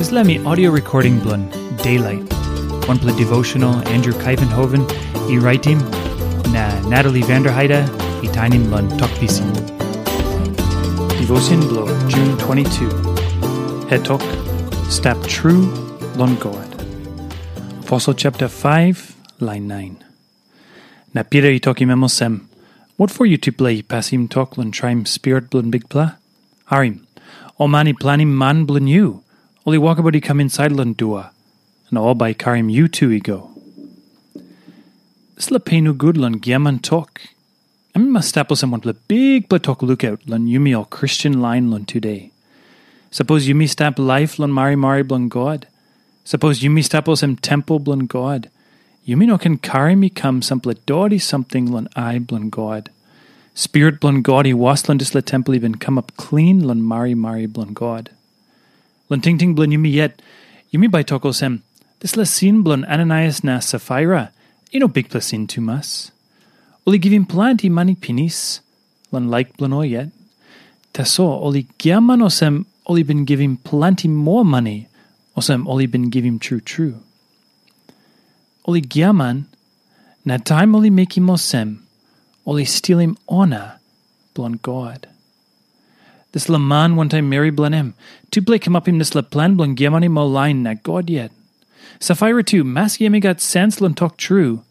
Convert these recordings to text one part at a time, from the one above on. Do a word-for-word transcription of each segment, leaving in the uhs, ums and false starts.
Dispela mi audio recording bilong Daylight, wanpela devotional Andrew Kaivenhoven i raitim, na Natalie Vanderheide i tainim long Tok Pisin. Devotion bilong June twenty-two. Hetok, Stap Tru Long God. Aposel chapter five, lain nine. Na Pita i tokim em olsem, "Wat for yutupela i pasim tok long traim Spirit bilong Bikpela? Harim, ol man i planim man bilong yu, ol i wokabaut i kam insait long dua, na ol bai i karim yu tu i go." Dispela pe nogut long giaman tok, em i mas stap olsem wanpela bikpela tok lukaut long yumi ol Kristen lain long tude. Sapos yumi stap laip long marimari bilong God, sapos yumi stap olsem tempel bilong God, yumi no ken karim i kam sampela doti samting long ai bilong God. Spirit bilong God i was long dispela tempel i bin kamap klin long marimari bilong God. Long tingting bilong yumi yet, yumi bai tok olsem, dispela sin bilong Ananaias na Safaira i no bikpela sin tumas. Ol i givim planti mani pinis long laik bilong ol yet. Tasol ol i giaman olsem ol i bin givim planti moa mani, olsem ol i bin givim tru tru. Ol i giaman, na taim ol i mekim olsem, ol i stilim ona bilong God. Dispela man wantaim meri bilong em, tupela i kamapim dispela plan bilong giamanim ol lain na God yet. Safaira tu, maski em i gat sens long tok tru,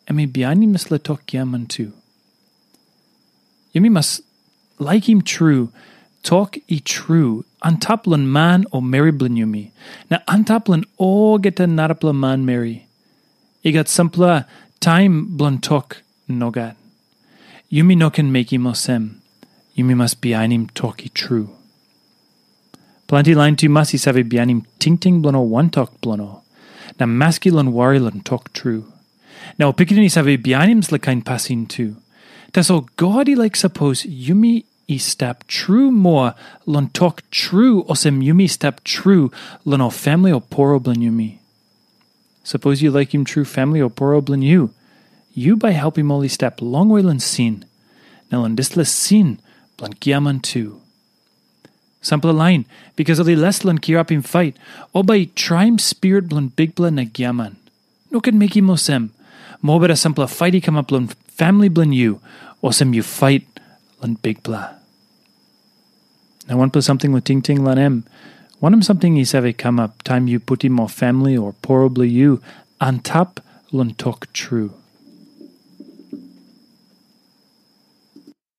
em i bihainim dispela tok giaman tu. Yumi mas laikim tru tok i tru antap long man o meri bilong yumi, na antap long olgeta narapela manmeri. I gat sampela taim bilong tok nogat. Yumi no ken mekim olsem. Yumi mas bihainim tok i tru. Planti lain tumas i save bihainim tingting bilong ol wantok bilong ol, na maski long wari long tok tru. Na ol pikinini i save bihainim dispela kain pasin tu. Tasol God i laik sapos yumi i stap tru moa long tok tru olsem yumi stap tru long ol famili o poro bilong yumi. Sapos yu laikim tru famili o poro bilong yu, yu bai helpim ol i stap longwe long sin, na long dispela sin bilong giaman tu. Sampela lain, bikas ol i les long kirapim fait, ol bai i traim spirit bilong Bikpela na giaman. No ken mekim olsem. Mobeta sampela fait i kamap long famili bilong yu, olsem yu fait long Bikpela. Na wanpela samting long tingting long em, wanem samting i save kamap taim yu putim ol famili o poro bilong yu antap long tok tru?